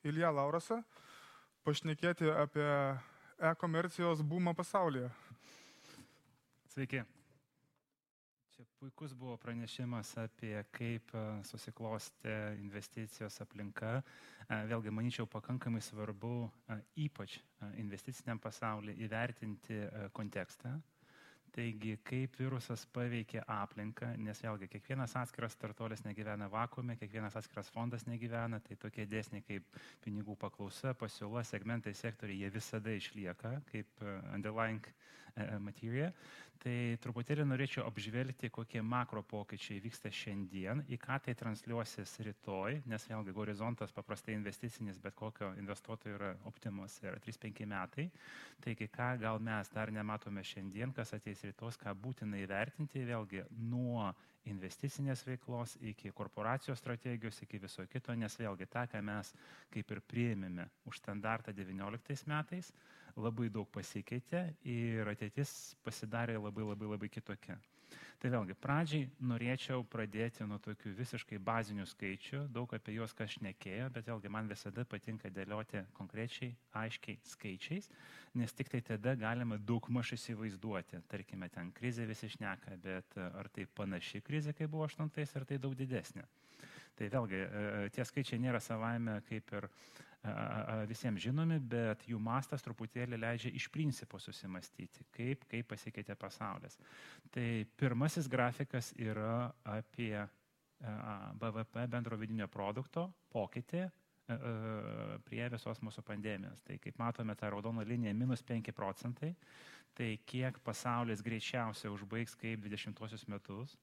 Ilja Laurasą, pašnekėti apie e-komercijos boomą pasaulyje. Sveiki. Čia puikus buvo pranešimas apie kaip susiklostė investicijos aplinka. Vėlgi, manyčiau, pakankamai svarbu ypač investiciniam pasaulyje įvertinti kontekstą. Taigi, kaip virusas paveikė aplinką, nes vėlgi kiekvienas atskiras startuolis negyvena vakuume, kiekvienas atskiras fondas negyvena, tai tokie dėsniai kaip pinigų paklausa, pasiūla, segmentai, sektoriai, jie visada išlieka kaip underlying materija. Tai truputėlį norėčiau apžvelgti, kokie makro pokyčiai vyksta šiandien, į ką tai transliuosis rytoj, nes vėlgi horizontas paprastai investicinis, bet kokio investuotojo yra optimus, yra 3-5 metai. Taigi, ką gal mes dar nematome šiandien, kas ateis rytos, ką būtina įvertinti, vėlgi nuo investicinės veiklos iki korporacijos strategijos, iki viso kito, nes vėlgi tą, ką mes kaip ir priėmėme už standartą 19 metais, labai daug pasikeitė ir ateitis pasidarė labai kitokia. Tai vėlgi, pradžiai norėčiau pradėti nuo tokių visiškai bazinių skaičių, daug apie juos kas šnekėjo, bet vėlgi man visada patinka dėlioti konkrečiai, aiškiai skaičiais, nes tik tai tada galima daugmaž įsivaizduoti. Tarkime, ten krizė visi šneka, bet ar tai panaši krizė, kaip buvo 8, ar tai daug didesnė. Tai vėlgi, tie skaičiai nėra savaime kaip ir visiems žinomi, bet jų mastas truputėlį leidžia iš principo susimastyti, kaip pasikeitė pasaulis. Tai pirmasis grafikas yra apie BVP bendro vidinio produkto pokytį prie visos mūsų pandemijos. Tai kaip matome, ta raudona linija -5%, tai kiek pasaulis greičiausiai užbaigs kaip 20 metus.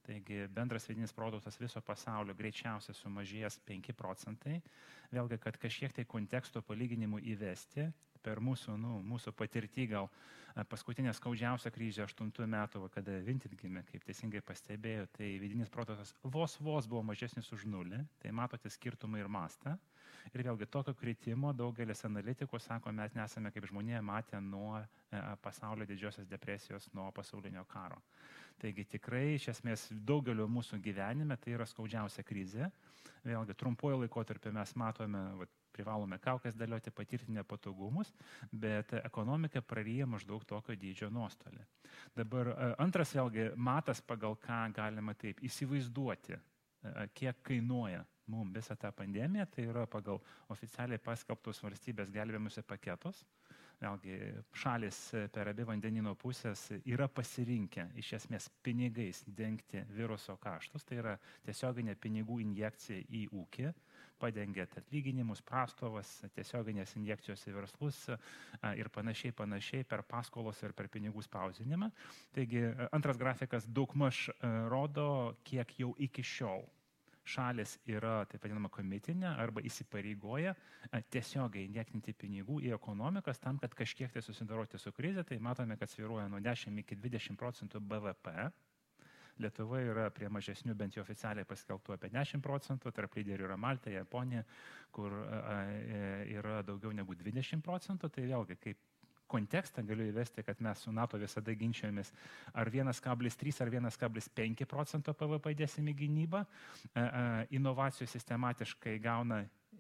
Taigi bendras vidinis produktas viso pasaulio greičiausiai sumažės 5%. Vėlgi, kad kažkiek tai konteksto palyginimų įvesti, per mūsų patirtį gal paskutinė skaudžiausia krizė 8 metų, kada Vinted gimė, kaip teisingai pastebėjo, tai vidinis produktas vos buvo mažesnis už 0, tai matote skirtumą ir mastą. Ir vėlgi tokio kritimo daugelis analitikų sako, mes nesame kaip žmonėje matę nuo pasaulio didžiosios depresijos, nuo pasaulinio karo. Taigi tikrai iš esmės daugelio mūsų gyvenime tai yra skaudžiausia krizė. Vėlgi trumpuoju laikotarpiu mes matome, privalome kaukes dėlioti, patirti nepatogumus, bet ekonomika praryja maždaug tokio dydžio nuostolį. Dabar antras vėlgi matas, pagal ką galima taip įsivaizduoti, kiek kainuoja mums visą tą pandemiją, tai yra pagal oficialiai paskelbtus valstybės gelbėjimuose paketus. Vėlgi šalis per abi vandenino pusės yra pasirinkę iš esmės pinigais dengti viruso kaštus, tai yra tiesioginė pinigų injekcija į ūkį, padengiant atlyginimus, prastovas, tiesioginės injekcijos į verslus ir panašiai per paskolos ir per pinigų spausdinimą. Taigi antras grafikas daugmaž rodo, kiek jau iki šiol šalis yra, taip vadinama, komitinė arba įsipareigoja tiesiogiai injektinti pinigų į ekonomikas tam, kad kažkiek tai susidoroti su krize. Tai matome, kad svyruoja nuo 10 iki 20% BVP. Lietuva yra prie mažesnių, bent jau oficialiai paskelbtų apie 10%, tarp lyderių yra Malta, Japonija, kur yra daugiau negu 20%. Tai vėlgi, kaip kontekstą galiu įvesti, kad mes su NATO visada ginčiojomės, ar 1,3 ar 1,5% PVP dėsim į gynybą. Inovacijų sistematiškai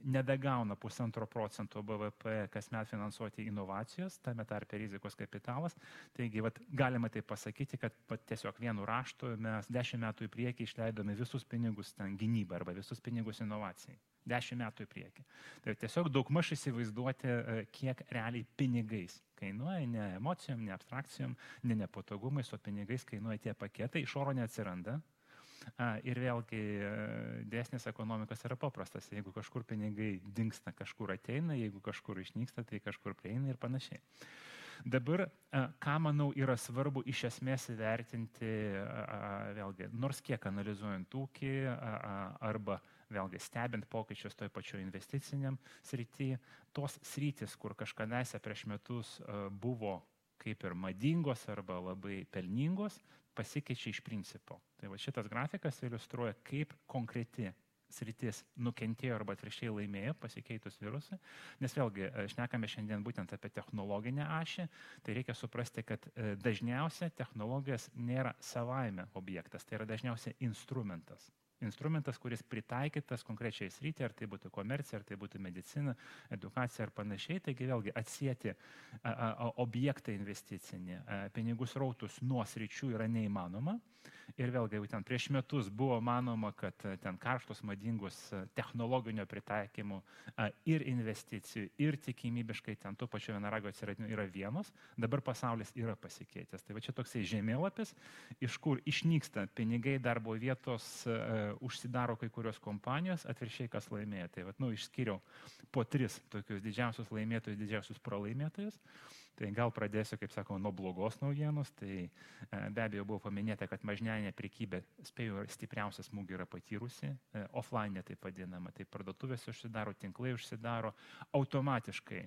nebegauna 1,5% BVP kasmet finansuoti inovacijos, tame tarpe rizikos kapitalas. Taigi, galima tai pasakyti, kad tiesiog vienu raštu mes 10 metų į priekį išleidome visus pinigus ten gynybai arba visus pinigus inovacijai. 10 metų į priekį. Tai tiesiog daugmaž įsivaizduoti, kiek realiai pinigais kainuoja, ne emocijom, ne abstrakcijom, ne nepatogumais, o pinigais kainuoja tie paketai, iš oro neatsiranda. Ir vėlgi dėsnis ekonomikos yra paprastas. Jeigu kažkur pinigai dingsta, kažkur ateina, jeigu kažkur išnyksta, tai kažkur prieina ir panašiai. Dabar, ką manau yra svarbu iš esmės įvertinti, vėlgi, nors kiek analizuojant ūkį arba vėlgi stebint pokyčius toj pačioj investiciniam srity, tos sritis, kur kažkadaise prieš metus buvo kaip ir madingos arba labai pelningos, pasikeičia iš principo. Tai šitas grafikas iliustruoja, kaip konkreti sritis nukentėjo arba atvirkščiai laimėjo pasikeitus virusui. Nes vėlgi, šnekame šiandien būtent apie technologinę ašį, tai reikia suprasti, kad dažniausiai technologijos nėra savaime objektas, tai yra dažniausiai instrumentas. instrumentas, kuris pritaikytas konkrečiai srityje, ar tai būtų komercija, ar tai būtų medicina, edukacija ar panašiai. Taigi vėlgi atsieti objektą investicinį, pinigų srautus nuo sričių yra neįmanoma. Ir vėlgi jau ten prieš metus buvo manoma, kad ten karštos, madingus technologinio pritaikymų ir investicijų, ir tikimybiškai ten tų pačių vienaragio atsiradimų yra vienos. Dabar pasaulis yra pasikeitęs. Tai va čia toksai žemėlapis, iš kur išnyksta pinigai, darbo vietos, užsidaro kai kurios kompanijos, atviršiai kas laimėjo. Tai va, išskyriau po 3 tokius didžiausius laimėtojus, didžiausius pralaimėtojus. Tai gal pradėsiu, kaip sakau, nuo blogos naujienos. Tai be abejo buvo paminėta, kad mažmeninė prekybė, spėjau, stipriausią smūgį yra patyrusi, offline taip vadinama, tai parduotuvės užsidaro, tinklai užsidaro, automatiškai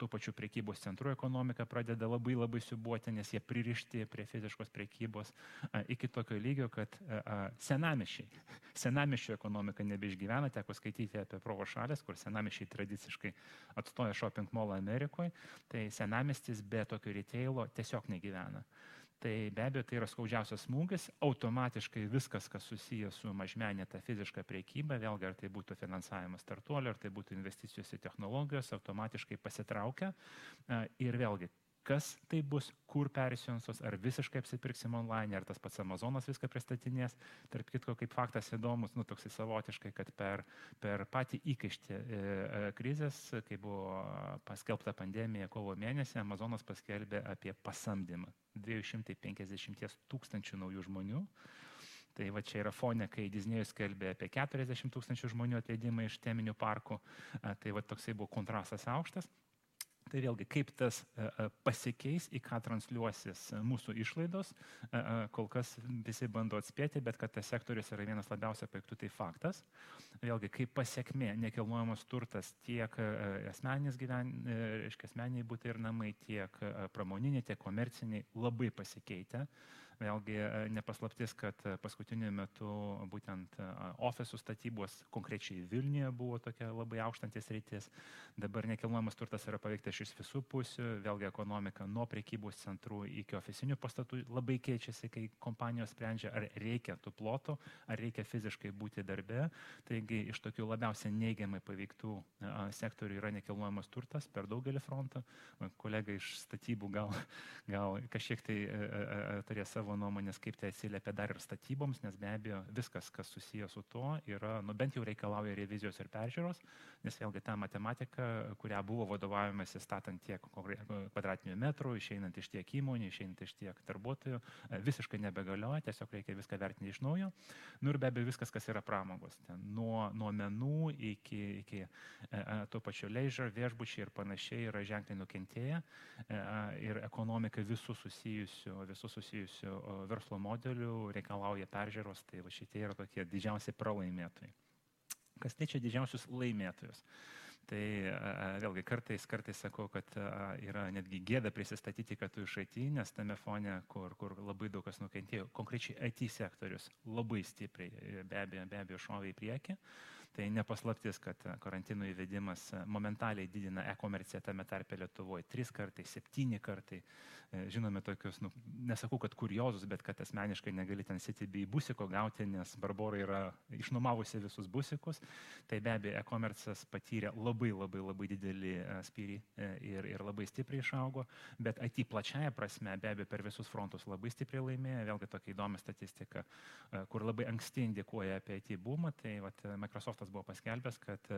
tų pačių prekybos centrų ekonomika pradeda labai siūbuoti, nes jie pririšti prie fiziškos prekybos iki tokio lygio, kad senamiesčio ekonomika nebeišgyvena. Teko skaityti apie Provo šalės, kur senamiesčiai tradiciškai atstoja shopping mallą Amerikoje, tai senamiestis be tokio retailo tiesiog negyvena. Tai be abejo, tai yra skaudžiausias smūgis, automatiškai viskas, kas susijęs su mažmeninė ta fiziška prekyba, vėlgi ar tai būtų finansavimas startuolio, ar tai būtų investicijos į technologijos, automatiškai pasitraukia. Ir vėlgi, kas tai bus, kur persiunsos, ar visiškai apsipirksim online, ar tas pats Amazonas viską pristatinės. Tarp kitko, kaip faktas įdomus, toksai savotiškai, kad per patį įkaištį krizės, kai buvo paskelbta pandemija kovo mėnesį, Amazonas paskelbė apie pasamdymą 250 000 naujų žmonių. Tai va čia yra fone, kai Disnėjus skelbė apie 40 000 žmonių atleidimą iš teminių parkų. Tai va toksai buvo kontrastas aukštas. Tai vėlgi, kaip tas pasikeis, į ką transliuosis mūsų išlaidos, kol kas visi bando atspėti, bet kad tas sektorius yra vienas labiausiai paveiktų, tai faktas. Vėlgi, kaip pasiekmė nekilnojamas turtas tiek asmeniniai butai ir namai, tiek pramoniniai, tiek komerciniai labai pasikeitę. Vėlgi nepaslaptis, kad paskutiniu metu būtent ofisų statybos konkrečiai Vilniuje buvo tokia labai aukštantis rytis. Dabar nekilnojamas turtas yra paveiktas iš visų pusių. Vėlgi ekonomika nuo prekybos centrų iki ofisinių pastatų labai keičiasi, kai kompanijos sprendžia, ar reikia tų plotų, ar reikia fiziškai būti darbe. Taigi iš tokių labiausiai neigiamai paveiktų sektorių yra nekilnojamas turtas per daugelį frontų. Kolega iš statybų gal kažkiek tai turės savo nuomonės, kaip tai atsiliepia dar ir statyboms, nes be abejo viskas, kas susijęs su to, yra, bent jau reikalauja revizijos ir peržiūros, nes vėlgi ta matematika, kurią buvo vadovaujamasi statant tiek kvadratinių metrų, išeinant iš tiek įmonių, išeinant iš tiek darbuotojų, visiškai nebegalioja, tiesiog reikia viską vertinti iš naujo. Ir be abejo viskas, kas yra pramogos, nuo menų iki to pačio leisure, viešbučiai ir panašiai yra ženkliai nukentėję ir ekonomika visų susijusių verslo modelių reikalauja peržiūros, tai va šitie yra tokie didžiausi pralaimėtojai. Kas liečia didžiausius laimėtojus? Tai vėlgi kartais sakau, kad yra netgi gėda prisistatyti, kad tu iš IT, nes tame fone, kur labai daug kas nukentėjo, konkrečiai IT sektorius labai stipriai be abejo šovė į priekį. Tai nepaslaptis, kad karantino įvedimas momentaliai didina e-komerciją tame tarpe Lietuvoje 3 kartai, 7 kartai. Žinome tokius, nesakau, kad kuriozus, bet kad asmeniškai negali ten CTB busiko gauti, nes Barbora yra išnuomavusi visus busikus. Tai be abejo e-komercijas patyrė labai didelį spyrį ir labai stipriai išaugo, bet IT plačiaja prasme be abejo per visus frontus labai stipriai laimėjo. Vėlgi tokia įdomi statistika, kur labai anksti indikuoja apie IT boomą. Tai Microsoftas buvo paskelbęs, kad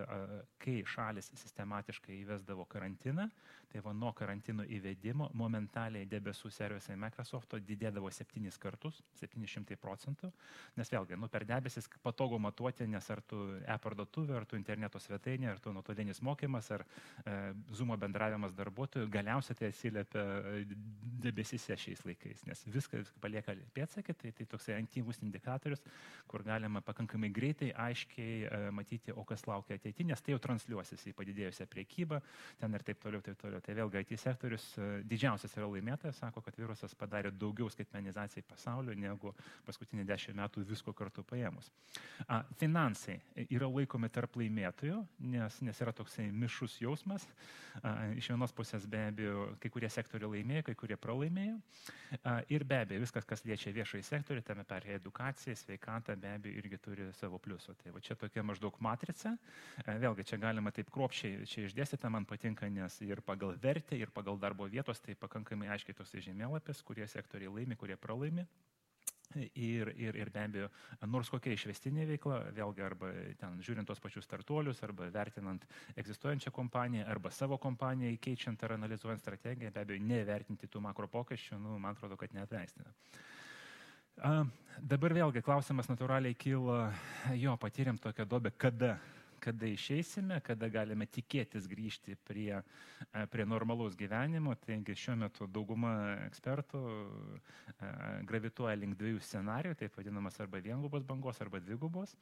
kai šalis sistematiškai įvesdavo karantiną, tai nuo karantino įvedimo momentaliai debesų servisai Microsofto didėdavo 7 kartus, 700%, nes vėlgi, per debesis patogu matuoti, nes ar tu e-parduotuvė, ar tu interneto svetainė, ar tu nuotolinis mokymas, ar Zoomo bendravimas darbuotojų, galiausiai tai atsiliepia debesyse šiais laikais, nes viskas palieka pėdsakai, tai toksai aktyvus indikatorius, kur galima pakankamai greitai, aiškiai matyti, o kas laukia ateityje, nes tai jau transliuosis į padidėjusią priekybą, ten ir taip toliau, taip toliau. Tai vėlgi IT sektorius didžiausias yra laimėtojas, sako, kad virusas padarė daugiau skaitmenizacijai pasaulio negu paskutinį 10 metų visko kartu paėmus. Finansai yra laikomi tarp laimėtojų, nes yra toksai mišrus jausmas. Iš vienos pusės be abejo kai kurie sektoriai laimėjo, kai kurie pralaimėjo. Ir be abejo viskas, kas liečia viešąjį sektorių, tame per edukaciją, sveikatą, be abejo irgi turi savo pliusų. Tai va čia tokia maždaug matrica. Vėlgi čia galima taip kruopščiai čia išdėstyti, man patinka, nes ir pagal vertę, ir pagal darbo vietos, tai pakankamai aiškiai toksai žemėlapis, kurie sektoriai laimi, kurie pralaimi. Ir be abejo, nors kokia išvestinė veikla, vėlgi arba ten žiūrint tos pačius startuolius, arba vertinant egzistuojančią kompaniją, arba savo kompaniją keičiant ar analizuojant strategiją, be abejo, nevertinti tų makro pokyčių, man atrodo, kad neatleistina. Dabar vėlgi klausimas natūraliai kyla, patyrėm tokią duobę, kada išeisime, kada galime tikėtis grįžti prie normalaus gyvenimo. Taigi šiuo metu dauguma ekspertų gravituoja link 2 scenarijų, taip vadinamas arba viengubos bangos, arba dvigubos.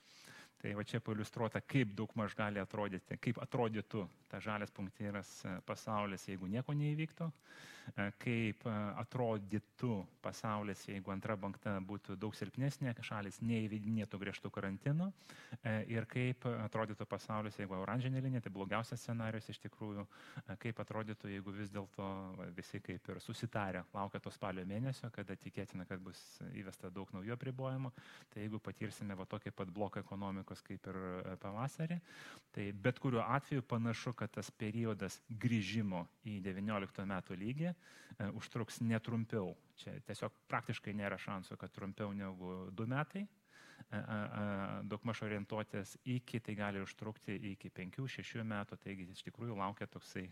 Tai va čia pailiustruota, kaip daugmaž gali atrodyti, kaip atrodytų ta žalias punktyras pasaulis, jeigu nieko neįvyktų, kaip atrodytų pasaulis, jeigu antra banga būtų daug silpnesnė, šalis neįvedinėtų griežtų karantino, ir kaip atrodytų pasaulis, jeigu oranžinė linija, tai blogiausias scenarijus iš tikrųjų, kaip atrodytų, jeigu vis dėlto visi kaip ir susitarę laukia to spalio mėnesio, kada tikėtina, kad bus įvesta daug naujų apribojimų, tai jeigu patirsime va tokį pat bloką ekonomikos kaip ir pavasarį, tai bet kuriuo atveju panašu, kad tas periodas grįžimo į 19 metų lygį užtruks netrumpiau. Čia tiesiog praktiškai nėra šansų, kad trumpiau negu 2 metai. Daugmaž orientuotis iki, tai gali užtrukti iki 5-6 metų, taigi iš tikrųjų laukia toksai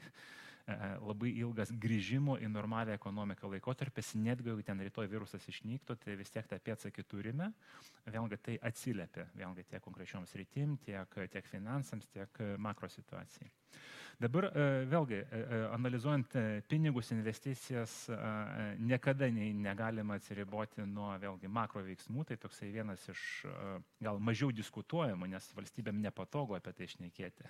labai ilgas grįžimo į normalią ekonomiką laikotarpis, netgi jeigu ten rytoj virusas išnyktų, tai vis tiek tą pėdsakį turime, vėlgi tai atsiliepia, vėlgi tiek konkrečioms rytim, tiek finansams, tiek makro situacijai. Dabar vėlgi, analizuojant pinigus, investicijas, niekada negalima atsiriboti nuo vėlgi makro veiksmų, tai toksai vienas iš gal mažiau diskutuojamų, nes valstybėm nepatogu apie tai šnekėti.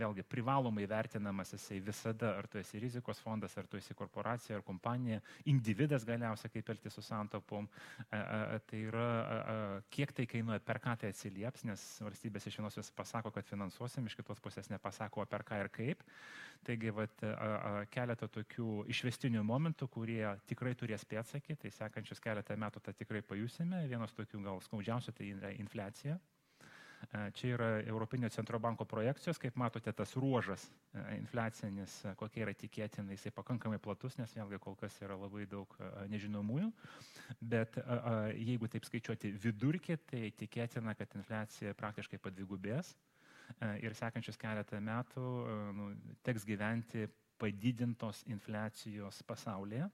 Vėlgi, privalomai vertinamas jisai visada, ar tu esi rizikos fondas, ar tu esi korporacija, ar kompanija, individas galiausiai kaip elgtis su santaupom, tai yra, kiek tai kainuoja, per ką tai atsilieps, nes valstybės iš vienos pasako, kad finansuosim, iš kitos pusės nepasako, per ką ir kaip. Taigi, keletą tokių išvestinių momentų, kurie tikrai turės pėdsakį, tai sekančius keletą metų tą tikrai pajusime. Vienas tokių gal skaudžiausių tai yra infliacija. Čia yra Europinio centro banko projekcijos, kaip matote, tas ruožas infliacinis, kokie yra tikėtina, jisai pakankamai platus, nes vėlgi kol kas yra labai daug nežinomųjų, bet jeigu taip skaičiuoti vidurkį, tai tikėtina, kad infliacija praktiškai padvigubės ir sekančius keletą metų teks gyventi padidintos infliacijos pasaulyje.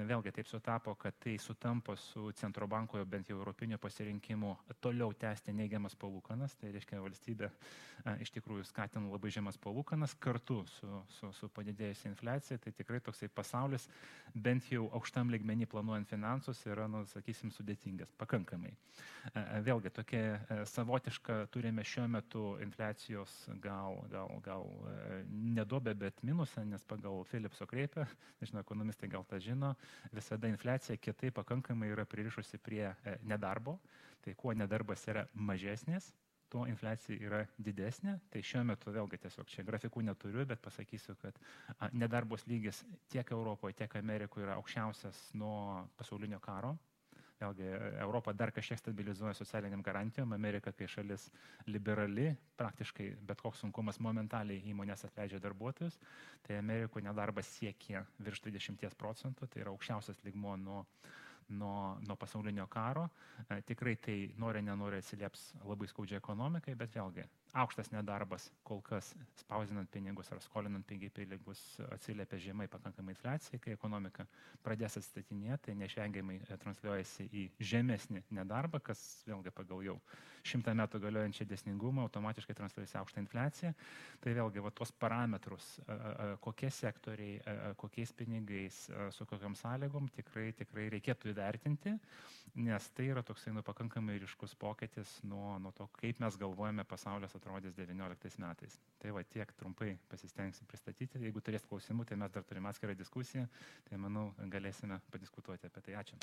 Vėlgi taip sutapo, kad tai sutampa su centro banko, bent jau europinio pasirinkimu, toliau tęsti neigiamas palūkanas, tai reiškia valstybė iš tikrųjų skatina labai žemas palūkanas kartu su padidėjusia infliacija, tai tikrai toksai pasaulis, bent jau aukštam lygmenį planuojant finansus, yra, sakysim, sudėtingas, pakankamai. Vėlgi tokia savotiška turime šiuo metu infliacijos gal neduobę, bet minusą, nes pagal Philipso kreipę, nežinau, ekonomistai gal tą žino, visada infliacija kietai pakankamai yra pririšusi prie nedarbo, tai kuo nedarbas yra mažesnis, tuo infliacija yra didesnė. Tai šiuo metu vėlgi tiesiog čia grafikų neturiu, bet pasakysiu, kad nedarbos lygis tiek Europoje, tiek Amerikoje yra aukščiausias nuo pasaulinio karo. Vėlgi, Europa dar kažkiek stabilizuoja socialiniam garantijom, Amerika, kai šalis liberali, praktiškai bet koks sunkumas momentaliai įmonės atleidžia darbuotojus, tai Amerikoje nedarbas siekia virš 20%, tai yra aukščiausias lygmuo nuo pasaulinio karo. Tikrai tai nori nenori atsilieps labai skaudžiai ekonomikai, bet vėlgi aukštas nedarbas kol kas spausdinant pinigus ar skolinant pinigus atsiliepia žemai pakankamai infliacijai, kai ekonomika pradės atstatinėti, tai neišvengiamai transliuojasi į žemesnį nedarbą, kas vėlgi pagal jau 100 metų galiojančią dėsningumą automatiškai transliuojasi aukštą infliaciją. Tai vėlgi tos parametrus, kokie sektoriai, kokiais pinigais, su kokiam sąlygom tikrai reikėtų įvertinti, nes tai yra toksai pakankamai ryškus pokytis nuo to, kaip mes galvojame pasaulis atrodys 19 metais. Tai tiek trumpai pasistengsim pristatyti. Jeigu turės klausimų, tai mes dar turime atskirą diskusiją, tai manau galėsime padiskutuoti apie tai. Ačiū.